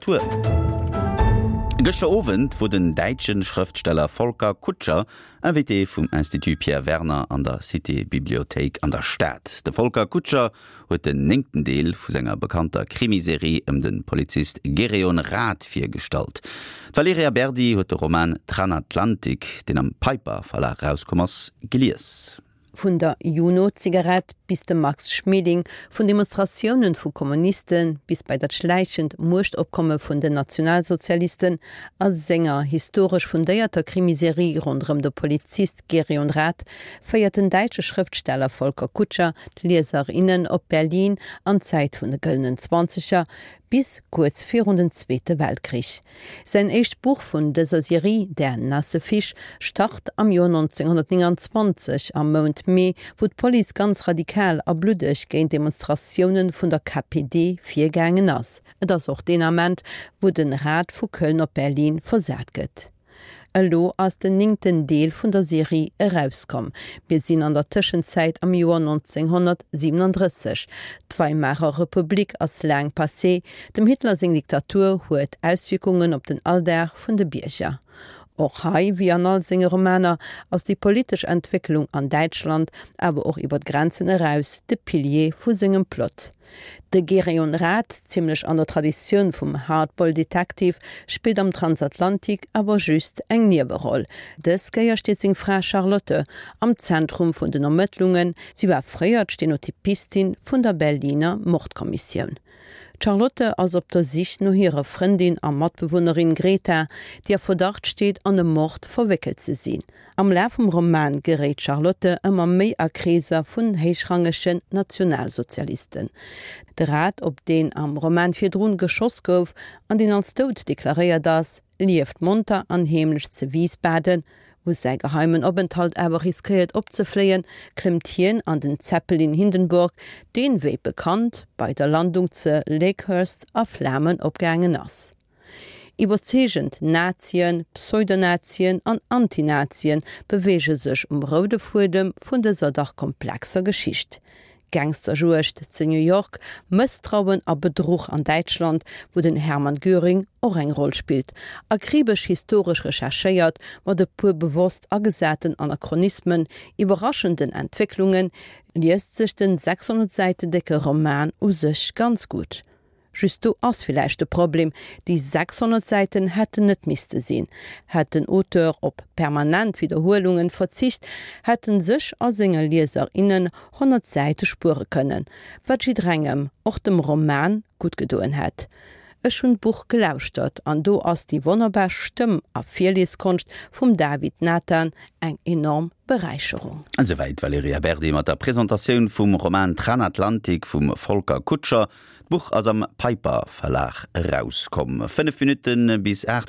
Literatur. Gëschter Owend wor den däitsche Schrëftsteller Volker Kutscher Invité vum Institut Pierre Werner an der Cité Bibliothéik an der Stad. De Volker Kutscher huet den néngten Deel vu senger bekannter Krimiserie ëm de Polizist Gereon Rath virgestallt. D'Valerija Berdi huet de Roman Tranatlantik, deen am Piper Verlag erauskomm ass, gelies. Vun der Juno-Zigarett bis de Max Schmeling, vun Demonstratiounen vu Kommuniste bis bei dat schläichend Muechtopkomme vun den Nationalsozialisten, a senger historesch fundéierter Krimiserie ronderëm de Polizist Gereon Rath féiert den däitsche Schrëftsteller Volker Kutscher d'Lieser, innen op Berlin an d'Zäit vun de Gëllenen Zwanzeger bis kuerz virun den Zweete Weltkrich. Säin éischt Buch vun dëser Serie, Der nasse Fisch, start am Joer 1929 am Mount Mee, wou d'Police ganz radikal a bluddeg géint Demonstratioune vun der KPD virgaangen ass. Et ass och deen Ament, wou den Rath vu Köln op Berlin versat gëtt. Elo ass den néngten Deel vun der Serie erauskomm. Mir sinn an der Tëschenzäit am Joer 1937. D'Weimarer Republik ass laang passé, dem Hitler seng Diktatur huet Auswierkungen op den Alldag vun de Bierger. Och hei, wéi an all senge Romaner, ass déi politesch Entwécklung an Däitschland, awer och iwwer d'Grenzen eraus, de Pilier vu sengem Plot. De Gereon Rath, zimlech an der Traditioun vum Hardboiled Detective, spillt am Transatlantik awer just eng Nieweroll. Dës Kéier steet seng Fra Charlotte am Zentrum vun den Ermëttlungen, si war fréier d'Stenotypistin vun der Berliner Mordkommissioun. D'Charlotte ass op der Sich no hirer Frëndin a Matbewunnerin Greta, déi a Verdacht steet an e Mord verwéckelt ze sinn. Am Laf vum Roman geréit d'Charlotte ëmmer méi a Kreeser vun héichrangegen Nationalsozialisten. De Rath, op deen am Roman virdrun geschoss gouf an deen als dout deklaréiert ass, lieft monter an heemlech ze Wiesbaden. Wou säi geheimen Openthalt awer riskéiert opzefléien, klëmmt hien an den Zeppelin Hindenburg, deen, wéi bekannt, bei der Landung ze Lakehurst a Flamen opgaangen ass. Iwwerzeegend Nazien, Pseudonazien an Antinazien beweege sech um roude Fuedem vun dëser dach komplexer Geschicht. Gangsterjuegd zu New York, Mësstrauen a Bedruch an Däitschland, wou den Hermann Göring och eng Roll spillt, akribesch historesch recherchéiert, mat e puer bewosst agesaten Anachronismen, iwwerraschenden Entwécklungen, liest sech den 600 Säiten décke Roman u sech ganz gutt. Just do ass villäicht de Problem, déi 600 Säiten hätten net misste sinn. Hätt den Auteur op permanent Widderhuelungen verzicht, hätt en sech a senge Lieser, innen 100 Säite spuere kënnen, wat jidderengem, och dem Roman, gutt gedoen hätt. Ech hunn d'Buch gelauschtert an do ass déi wonnerbar Stëmm a Virlieskonscht vum David Nathan eng enorm Beräicherung. Esouwäit d'Valerija Berdi mat der Presentatioun vum Roman Tranatlantik vum Volker Kutscher. D'Buch ass am Piper Verlag erauskomm. 5 Minutte bis 8.